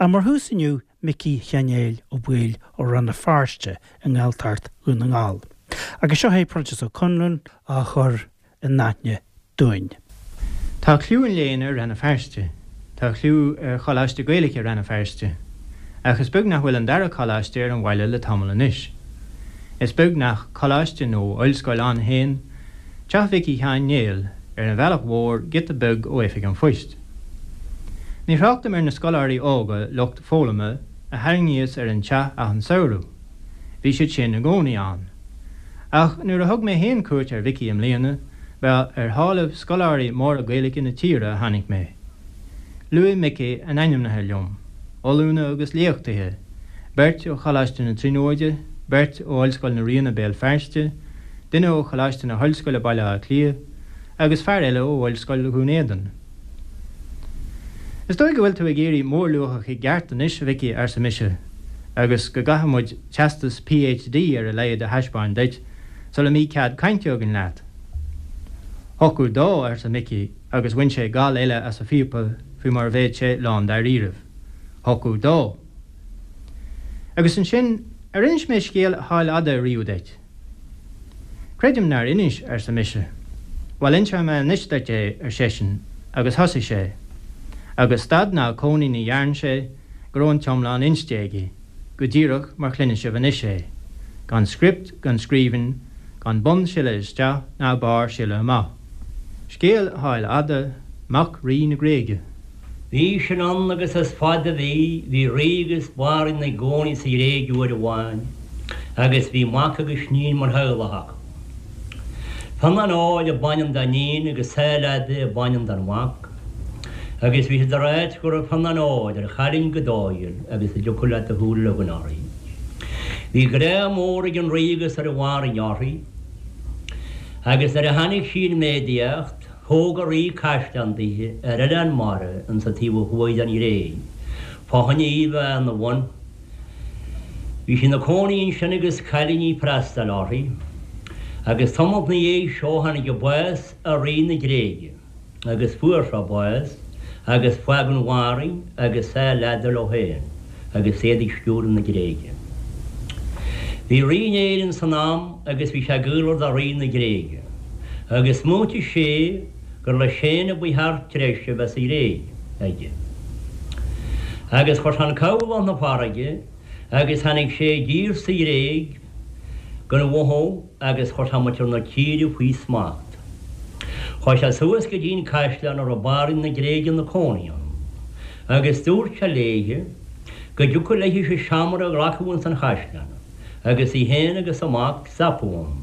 Ach mar thús inniu, Micí Sheáin Néill Ó Baoill ó Rann na Feirste i nGaeltacht Dhún na nGall. Agus seo é Proinsias Ó Conluain á chur in aithne dúinn. Tá cliú an léinn ar Rann na Feirste. Tá cliú ar Choláiste Gaeilge Rann na Feirste. Ach is beag nach bhfuil an dara coláiste ar an bhaile le tamall anois. Is beag nach coláiste nó ollscoil ann féin Teach Mhicí Sheáin Néill ar an bhealach mhór giota beag ó oifig an phoist. Ní thráchtaim ar na scoláirí óga lucht foghlama a tharraingíos ar an teach achan samhradh. Bhí siad sin i gcónaí ann. Ach nuair a thug mé féin cuairt ar Mhicí i mbliana, ba ar shálaibh scoláirí móra Gaeilge na tíre a tháinig mé. Luaigh Micí a n-ainmneacha liom, ollúna agus léachtaithe, beirt ó Choláiste na Tríonóide, beirt ó Ollscoil na Ríona Béal Feirste, duine ó Choláiste na hOllscoile Baile Átha Cliath, agus fear eile ó Ollscoil Dhún Éideann. Is dóigh go bhfuil tú ag éirí mórluachach i gceart anois, a Mhicí, arsa mise, agus go gcaithfidh muid teastas PhD ar a laghad a thaispeáin duit sula mbí cead cainte againn leat. Thiocfadh dó, arsa Micí, agus bhain sé gal eile as a phíopa faoi mar a bheadh sé lán dáiríribh. Thiocfadh dó. Agus ansin, ar inis mé scéal Sháil Fhada riamh duit? Creidim nár inis, arsa mise. Bhuel, inseoidh mé anois duit é, ar seisean, agus thosaigh sé. Agus stad ná cónaí ní dhearn sé go raibh an t-iomlán inste aige, go díreach mar chluineann sibh anois é, gan script gan scríbhinn, gan bun sileadh isteach ná barr sileadh amach. Scéal Sháil Fhada, mac Rí na Gréige. Bhí sin ann agus is fada a bhí, bhí rí agus banríon ina gcónaí sa Ghréig uair amháin agus bhí mac agus iníon mar theaghlach acu. Fionnán Áil ab ainm don iníon agus Sáil Fhada ab ainm don mhac agus bhí siad ag ráit go raibh Fionnán Óir ar chailín go dóighiúil agus a dtiocfadh leat do shúil a leagan uirthi. Bhí grá mór ag an rí agus ar an bhanríon uirthi agus nuair a tháinig sí in méadaíocht, Thóg an rí caisleán daoithe ar oileán mara ins an taobh ó thuaidh den Ghréig, fá choinne í bheith ina bhun. Bhí sí ina cónaí ansin agus cailíní ag freastal uirthi, agus tamalt 'na dhiaidh seo tháinig an bás ar rí na Gréige, agus fuair sé bás, agus fágadh an bhanríon agus Sáil Fhada leo féin, agus iad ag stiúradh na Gréige. Bhí rí in Éirinn san am agus bhí sé gaolmhar do rí na Gréige, agus smaointigh sé gur leis féin a ba cheart treise a bheith sa Ghréig aige. Agus chuir sé an cabhlach 'na farraige agus tháinig sé i dtír sa Ghréig gan mhothú agus chuir sé muintir na tíre faoi smacht. Chuaigh sé suas go dtí'n caisleán a raibh banríon na Gréige 'na cónaí ann, agus dúirt sé léithe go dtiocfadh léithe seomra a ghlacadh ins an chaisleán, agus í féin agus a mac stopadh ann,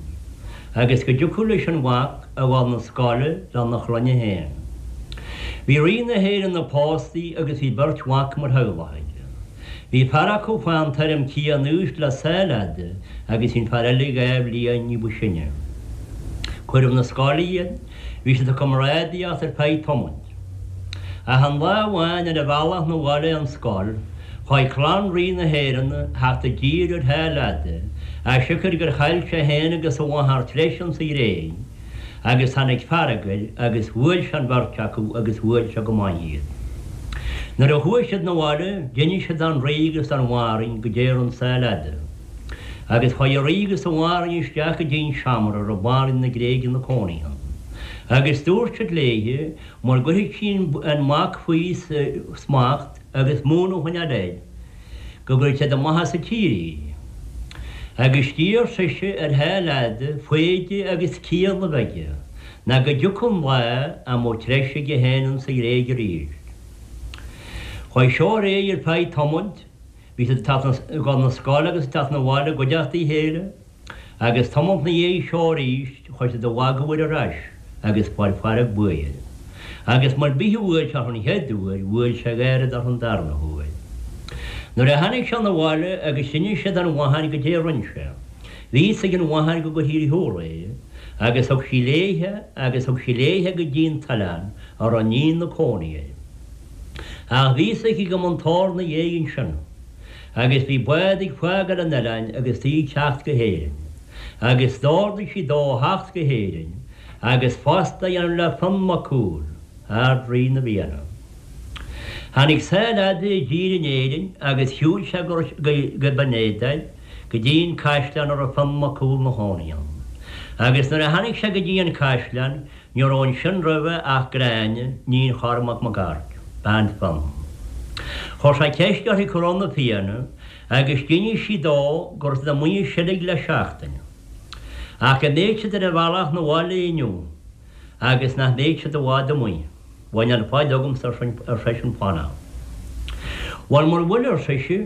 agus go dtiocfadh leis an mhac a dhul 'na scoile lena chlainne féin. Bhí rí na hÉireann pósta agus bhí beirt mhac mar theaghlach aige. Bhí fear acu fán tuairim céanna aois le Sáil Fhada agus bhí an fear eile dha bhliain ní ba sine. Cuireadh 'na scoile iad, bhí siad ag comrádaíocht ar feadh tamaill. Ach aon lá amháin ar a bhealach 'na bhaile ón scoil, chuaigh clann Rí na hÉireann a theacht i dtír ar Sháil Fhada, as siocair gur chaill sé féin agus a mháthair treise insa Ghréig. Agus tháinig fearg air agus bhuail sé an bheirt acu agus bhuail sé go maith iad. Nuair a chuaigh siad 'na bhaile d'inis siad don rí agus don bhanríon goidé a rinn Sáil Fhada. Agus chuaigh an rí agus an bhanríon isteach go dtí'n seomra a raibh banríon na Gréige 'na cónaí ann. Agus dúirt siad léithe mura gcuirfeadh sí an mac faoi smacht agus múineadh a choinneáil air, go gcuirfeadh siad amach as an tír í. Agus d'iarr sise ar Sháil Fhada foighde agus ciall a bheith aige, ná go dtiocfadh an lá a mbeadh treise aige féin insa Ghréig arís. Chuaigh seo ar aghaidh ar feadh tamaill, bhí siad ag teacht ag dul 'na scoile agus ag teacht 'na bhaile i gcuideachta a chéile, Agus tamalt 'na dhiaidh seo arís chuir siad a mhagadh air ar ais agus fuair fearg buaidh air. Agus mar bith a bhuail sé orthu an chéad uair, bhuail sé gairid orthu an darna huair. Nuair a tháinig sé 'na bhaile agus d'inis sé don mháthair goidé a rinn sé, bhí fhios ag an mháthair go gcuirfí ar shiúl é, agus thug sí léithe agus thug sí léithe go dtí'n t-oileán a raibh an iníon 'na cónaí air. Ach bhí fhios aici go mba an tor 'na dhiaidh ansin. Agus bhí bád ag fágáil an oileáin agus í ag teacht go hÉirinn. Agus d'ordaigh sí dó a theacht go hÉirinn agus pósta a dhéanamh le Fionn Mac Cumhaill, Ard-Rí na bhFianna. Tháinig Sáil Fhada i dtír in Éirinn agus shiúil sé go Binn Éadair go dtí an caisleán a raibh Fionn Mac Cumhaill 'na chónaí ann. Agus nuair a tháinig sé go dtí an caisleán ní raibh ansin roimhe ach Gráinne, níon Chormac Mac Airt, bean Fionn. Chuir sé ceist uirthi cá raibh na Fianna agus d'inis sí dó go raibh siad amuigh ag seilg le seachtain ach go mbeadh siad ar a bhealach 'na bhaile inniu. agus nach mbeadh siad i bhfad amuigh. Bhuel, níl faill agamsa, ar seisean, fanacht. Bhuel, mura bhfuil, ar sise,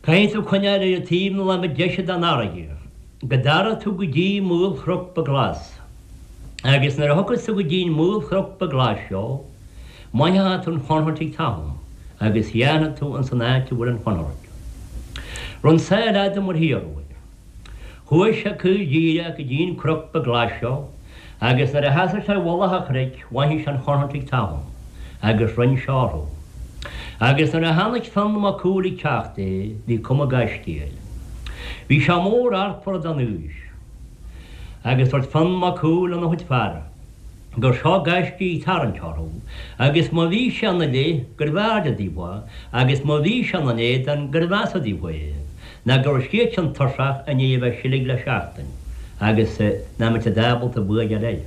caithfidh tú coinneáil ar taobh na láimhe deise den fharraige, go dtara tú go dtí maolchnoc beag glas. Agus nuair a thiocfas tú go dtí an maolchnoc beag glas seo, mothaíonn tú an chontúirt ag tatham, agus dhéanfaidh tú ins an áit a bhfuil an chontúirt. Rinn Sáil Fhada mar hiarradh. Chuaigh sé caol díreach go dtí an cnoc beag glas seo agus nuair a sheasaigh sé i mhullach an chnoic mhothaigh sé an chontúirt ag tatham agus rinn sé orthu. Agus nuair a chonaic Fionn Mac Cumhaill ag teacht é bhí cuma gaiscígh air. Bhí sé mór artmhar don aois. Agus dúirt Fionn Mac Cumhaill lena chuid fear. gur seo gaiscígh ag tarraingt orthu, agus má bhí sé ina leith, gurbh fhearrde daofa é, agus má bhí sé ina n-éadan, gurbh mheasa daofa é, ná go raibh siadsan tuirseach i ndiaidh a bheith ag seilg le seachtain, agus nach mbeadh siad ábalta bua a fháil air.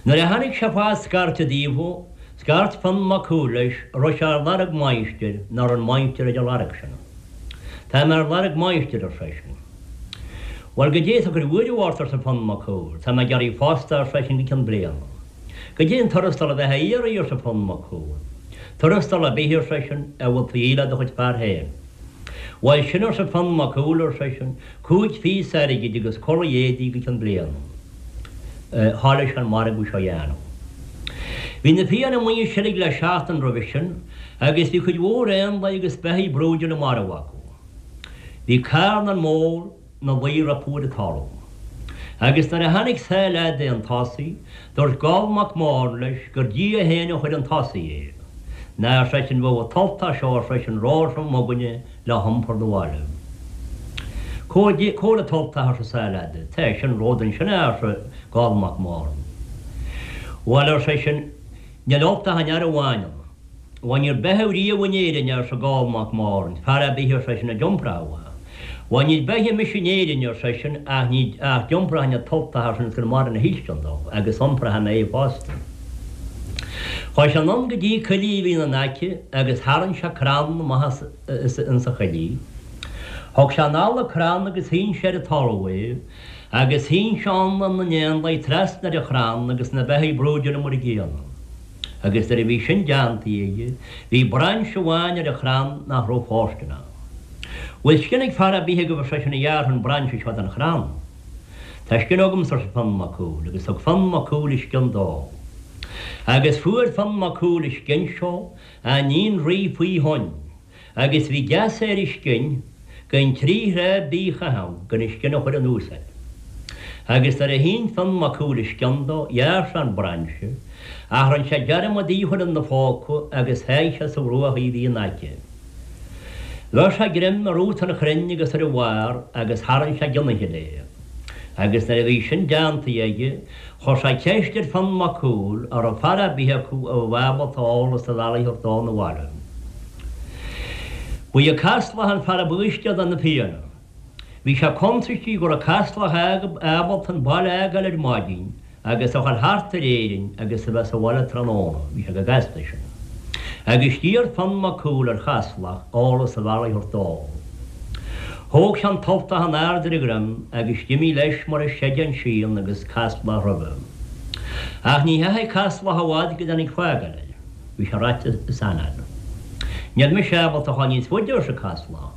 Nuair a tháinig sé fá scairteadh daofa, scairt Fionn Mac Cumhaill leis, an raibh sé ar lorg máistir, ná raibh an máistir ar a lorg sin. Tá mé ar lorg máistir, ar seisean. Bhuel, goidé atá ag cur buaireamh ort, arsa Fionn Mac Cumhaill. Tá mé ag iarraidh posta, ar seisean, go ceann bliana. Goidé an tuarastal a bheifeá a iarraidh, arsa Fionn Mac Cumhaill. Tuarastal ar bith, ar seisean, a bhfuil tú a dhíol le do chuid fear féin. Bhuel, sin, arsa Fionn Mac Cumhaill, ar seisean, chúig phíosa airgid agus culaith éadaigh go ceann bliana. Thoiligh sé an margadh seo a dhéanamh. Bhí na Fianna amuigh ag seilg le seachtain roimhe sin agus bhí cuid mhór éanlaith agus beithígh brúidiúla marbh acu. Bhí carnán mór 'na luí rompu ar an talamh. Agus nuair a tháinig Sáil Fhada 'un tosaigh, dúirt Goll Mac Mòrn leis gur Dia féin a chuir 'un tosaigh é. Ná, ar seisean, bheadh an t-ultach seo, ar seisean, róthrom againne le hiompar 'na bhaile. Cá bhfuil an t-ultach, arsa Sáil Fhada. Tá, sin romhat ansin é, arsa Goll Mac Mòrn. Bhuel, ar seisean, níl ultach an fhear amháin ann. Bhuel, níor beitheadh riamh in Éirinn, arsa Goll Mac Mòrn, fear ar bith, ar seisean, a d'iompródh é. Bhuel, níor beitheadh mise in Éirinn, ar seisean, ach ní, ach d'iompróinn an t-ultach, ar seisean, is gur maireann a thuilltean dó, agus iompróidh mé é fosta. Chuaigh sé anonn go dtí coillidh a bhí ina n-aice agus tharraing sé crann amach as insa choillidh. Thug sé anall an crann agus shín sé ar an talamh é, agus shín sé ann na n-éanlaith trasna ar an chrann agus na beithígh brúidiúla mar an gcéanna. Agus nuair a bhí sin déanta aige, bhí brainse amháin ar an chrann nach raibh fóirsteanach. Bhfuil scian ag fear ar bith agaibh, ar seisean, a ghearrfadh an brainse seo den chrann? Tá scian agamsa, arsa Fionn Mac Cumhaill, agus thug Fionn Mac Cumhaill a scian dó. Agus fuair Fionn Mac Cumhaill an scian seo á iníon rí faoi thoinn. Agus bhí geasa ar an scian gan trí thráth bídh a chaitheamh gan an scian a chur anuas air. Agus nuair a shín Fionn Mac Cumhaill a scian dó, ghearr sé an brainse, ach rinn sé dearmad í a chur ina phóca agus sháigh sé sa bhruach í a bhí in aice. Bheir sé greim ar rúta an chrainn agus ar a bharr agus tharraing sé den fhichille é. Agus nuair a bhí sin déanta aige, chuir sé ceist ar Fionn Mac Cumhaill an raibh fear ar bith acu a bheadh ábalta eolas an bhealaigh a thabhairt dó 'na bhaile. Ba é Caslach an fear ab fhaoistine de na Fianna. Bhí sé cuntaistí go raibh Caslach ábalta an baile a fhágáil ar maidin agus a dhul thart ar Éirinn agus a bheith sa bhaile tráthnóna, bhí sé chomh gasta sin. Agus d'iarr Fionn Mac Cumhaill ar Chaslach eolas an bhealaigh a thabhairt dó. Thóg sé an t-ultach in airde ar a dhroim agus d'imigh leis mar a seideán síon agus Caslach roimhe. Ach ní theachaigh Caslach i bhfad go dtáinig fágáil air. Bhí sé reaite is anáil. Níl mise ábalta a dhul níos faide, arsa Caslach.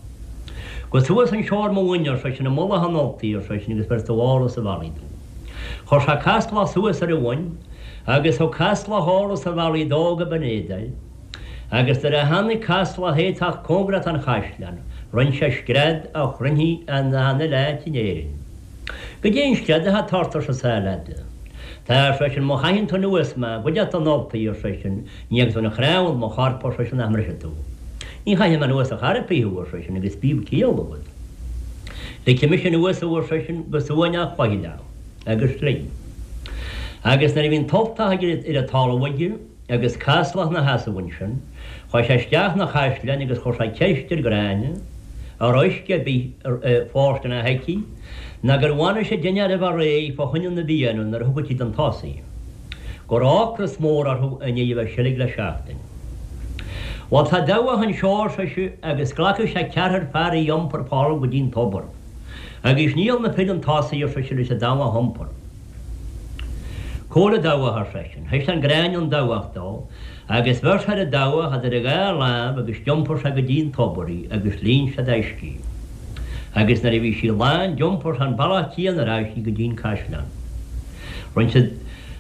Gabh suas anseo ar mo mhuin, ar seisean, i mullach an ultaigh, ar seisean, agus bhéarfaidh tú eolas an bhealaigh domh. Chuir sé Caslach suas ar a mhuin agus thug Caslach eolas an bhealaigh dó go Binn Éadair. Agus nuair a tháinig Caslach é teacht cóngarach don chaisleán, rinn sé scread a chluinfí in achan uile áit in Éirinn. Goidé an scread atá ort, arsa Sáil Fhada. Tá, ar seisean, má chaitheann tú anuas mé, goidfead don ultaigh, ar seisean, ní fhágfaidh tú aon chnámh de mo chorp, ar seisean, nach mbrisfidh tú. Ní chaithfidh mé anuas ar chor ar bith thú, ar seisean, agus bíodh ciall agat. Ligfidh mise anuas thú, ar seisean, go suaimhneach faichilleach, agus lig. Agus nuair a bhí an t-ultach ar an talamh aige. agus caslach 'na sheasamh ansin, chuaigh sé isteach 'na chaisleáin agus chuir sé ceist ar Ghráinne, an raibh uisce ar bith fóirsteanach aici, ná gur bhainis an dinnéar a bheith réidh fá choinne na bhFianna nuair a thiocfadh siad chun tosaigh. Go raibh ocras mór orthu i ndiaidh a bheith seilg le seachtain. Bhuel, tá dabhach anseo, ar sise, agus glacfaidh sé ceathrar fear í a iompar fá go dtí'n tobar. Agus níl na fir chun tosaigh, ar sise, leis an dabhach a iompar. Cá bhfuil an dabhach, ar seisean. Thaispeáin Gráinne an dabhach dó, agus bheir sé ar an dabhach idir a dhá láimh agus d'iompair sé go dtí'n tobar í agus líon sé d'uisce í. Agus nuair a bhí sí lán d'iompair sé an bealach céanna ar ais í go dtí'n caisleán. Rinne siad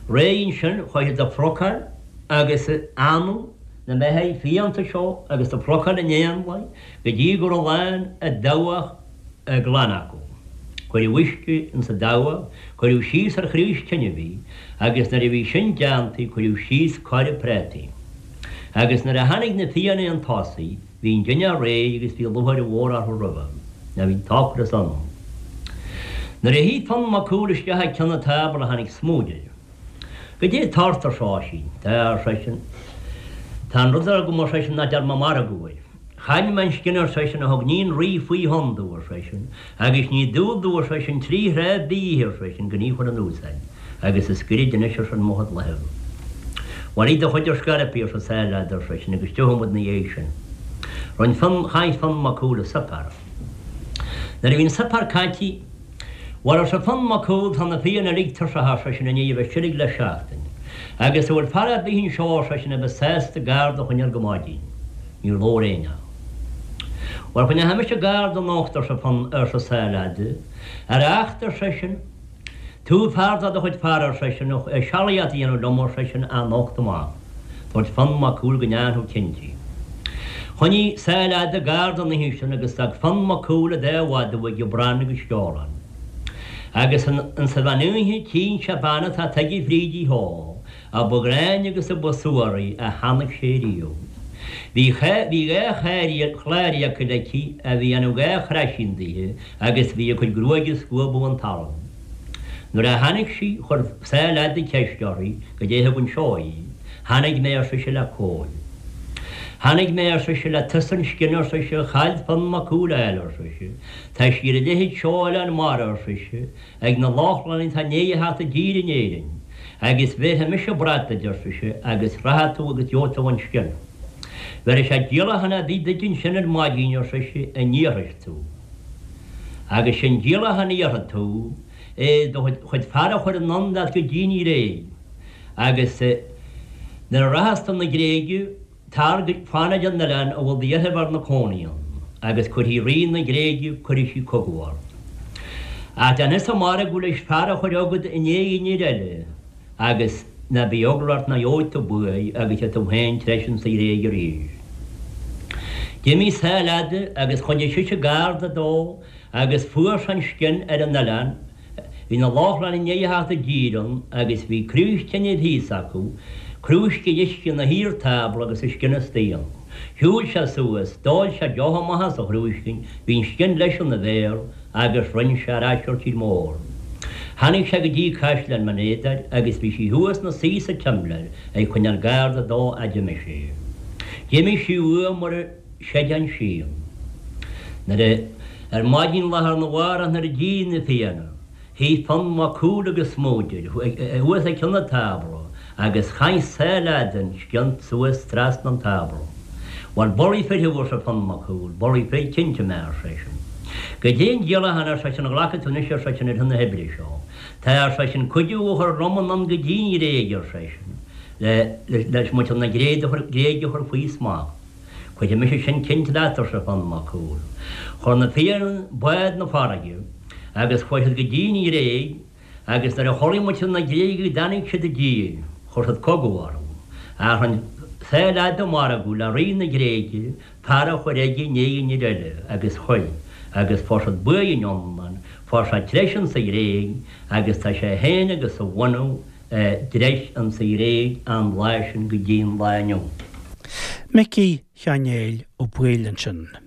réidh ansin, chuaigh siad ag plucáil agus ag anadh na mbeithígh fiánta seo agus ag plucáil in éanlaith go dtí go raibh lán an dabhach glan acu. Cuireadh uisce ins an dabhach, cuireadh síos ar chraos tinibh í, agus nuair a bhí sin déanta cuireadh síos coire prátaí. Agus nuair a tháinig na Fianna 'un tosaigh, bhí an dinnéar réidh agus bhí lúcháir mhór orthu roimhe, nó bhí an t-ocras iontu. Nuair a shuigh Fionn Mac Cumhaill isteach ag cionn an tábla tháinig Smúid air. Goidé tá ort, ar Oisín. Tá, ar seisean. Tá an rud agam, ar seisean, nach ndearna mé margadh air. Chaill mé an scian, ar seisean, a thug níon rí faoi thonn domh, ar seisean, agus ní dual domh, ar seisean, trí thráth bídh, ar seisean, gan í a chur in úsáid, agus is goirid anois, ar seisean, mo chuid lámh. Bhuel, ith do chuid ar scor ar bith, arsa Sáile Fhada, ar seisean, agus tiocfaidh muid 'na dhiaidh sin. Rinne Fionn, chaith Fionn Mac Cumhaill a suipéar. Nuair a bhí an suipéar caite, Bhuel, arsa Fionn Mac Cumhaill, tá na Fianna uilig tuirseach, ar seisean, i ndiaidh a bheith seilg le seachtain. Agus an bhfuil fear ar bith anseo, ar seisean, a bheas sásta garda a choinneáil go maidin? Níor labhair éinne. Bhuel, coinneoidh mise garda anocht, arsa Fionn, arsa Sáile Fhada. Ar acht, ar seisean, tú fear de do chuid fear, ar seisean, sealaíocht a dhéanamh liom, ar seisean, anocht amach. Dúirt Fionn Mac Cumhaill go ndeánfadh cinnte. Choinnigh Sáile Fhada garda an oíche sin agus d'fhág Fionn Mac Cumhaill a dá mhadadh aige, Bran agus Sceolán. Agus insa mheán oíche tchíonn sé bean atá tagtha fríd í shó, a ba ghráinne agus a ba suaraí a chonaic sé riamh. Bhí bhí dhá chlár fhiacail aici a bhí ina dhá chroisín daoithe agus bhí a cuid gruaige ag scuabadh an talamh. Nuair a tháinig sí, chuir Sáile Fhada ceist uirthi, Goidé thug anseo í. Tháinig mé, ar sise, le Cóil. Tháinig mé, ar sise, le tusa an scian, ar sise, a chaill Fionn Mac Cumhaill a fháil, ar sise. Tá sí ar an leithead seo Oileán Mara, ar sise, ag na Lochlannaigh atá i ndiaidh a theacht i dtír in Éirinn. Agus bhéarfaidh mise brat duit, ar sise, agus rachaidh tú agus gheobhaidh tú an scian. Bhéarfaidh sé díolachán ar bith duit ansin ar maidin, ar sise, a n-iarrfas tú. Agus sin díolachán a iarrfaidh tú. é do chuid fear a chur anonn leat go dtí'n Ghréig, agus nuair a rachas tú 'na Gréige, tar go, fan ar an oileán a bhfuil do dheirfiúr 'na cónaí ann, agus cuirfidh rí na Gréige, cuirfidh sí cogadh ort. Ach déanfadsa margadh leis fear a chur agat i ndiaidh an fhir eile, agus ná bíodh eagla ort ná gheobhaidh tú buaidh agus gheobhaidh tú féin treis insa Ghréig arís. D'imigh Sáile Fhada agus choinnigh sise garda dó Agus fuair sé an scian ar an oileán, bhí na Lochlannaigh i ndiaidh a theacht i dtír ann agus bhí craos tinibh thíos acu, crúisc uisce ina thaobh ar tábla agus an scian istigh ann. Shiúil sé suas, d'ól sé deoch amach as an chrúiscín, bhí an scian leis ina bhéal agus rinn sé ar ais ar tír mór. Tháinig sé go dtí caisleán Bhinn Éadair agus bhí sí thuas 'na suí sa tsimléar ag coinneáil garda dó fhad d'imigh sé. D'imigh sí uaidh mar a. Séideán Sí. Nuair a Ar maidin lá arna mhárach nuair a d'éirigh na Fianna, shuigh Fionn Mac Cumhaill agus Smúid thuas ag cionn an tábla agus chaith Sáile Fhada an scian suas trasna an tábla. Bhuel, bulaí fir thú, arsa Fionn Mac Cumhaill, bulaí fir cinnte mé, ar seisean. Goidé an díolachán, ar seisean, a ghlacfaidh tú anois, ar seisean, ar shon na hoibre seo. Tá, ar seisean, cuidiú a chur liom anonn go dtí an Ghréig, ar seisean, le leis muintir na Gréige a chur faoi smacht. Cuirfidh mise sin cinnte leat, arsa Fionn Mac Cumhaill. Chuir na Fianna bád 'na farraige agus chuaigh siad go dtí an Ghréig agus nuair a chuala muintir na Gréige go dtáinig siad i dtír, chuir siad cogadh orthu. Ach rinn Sáile Fhada margadh le rí na Gréige fear a chur aige i ndiaidh an fhir eile agus chuir, agus fuair siad buaidh an iomlán, fuair sé treis insa Ghréig agus tá sé féin agus a bhunadh dtreis insa Ghréig an lá sin go dtí an lá inniu. Micí Sheáin Néill Ó Baoill ansin.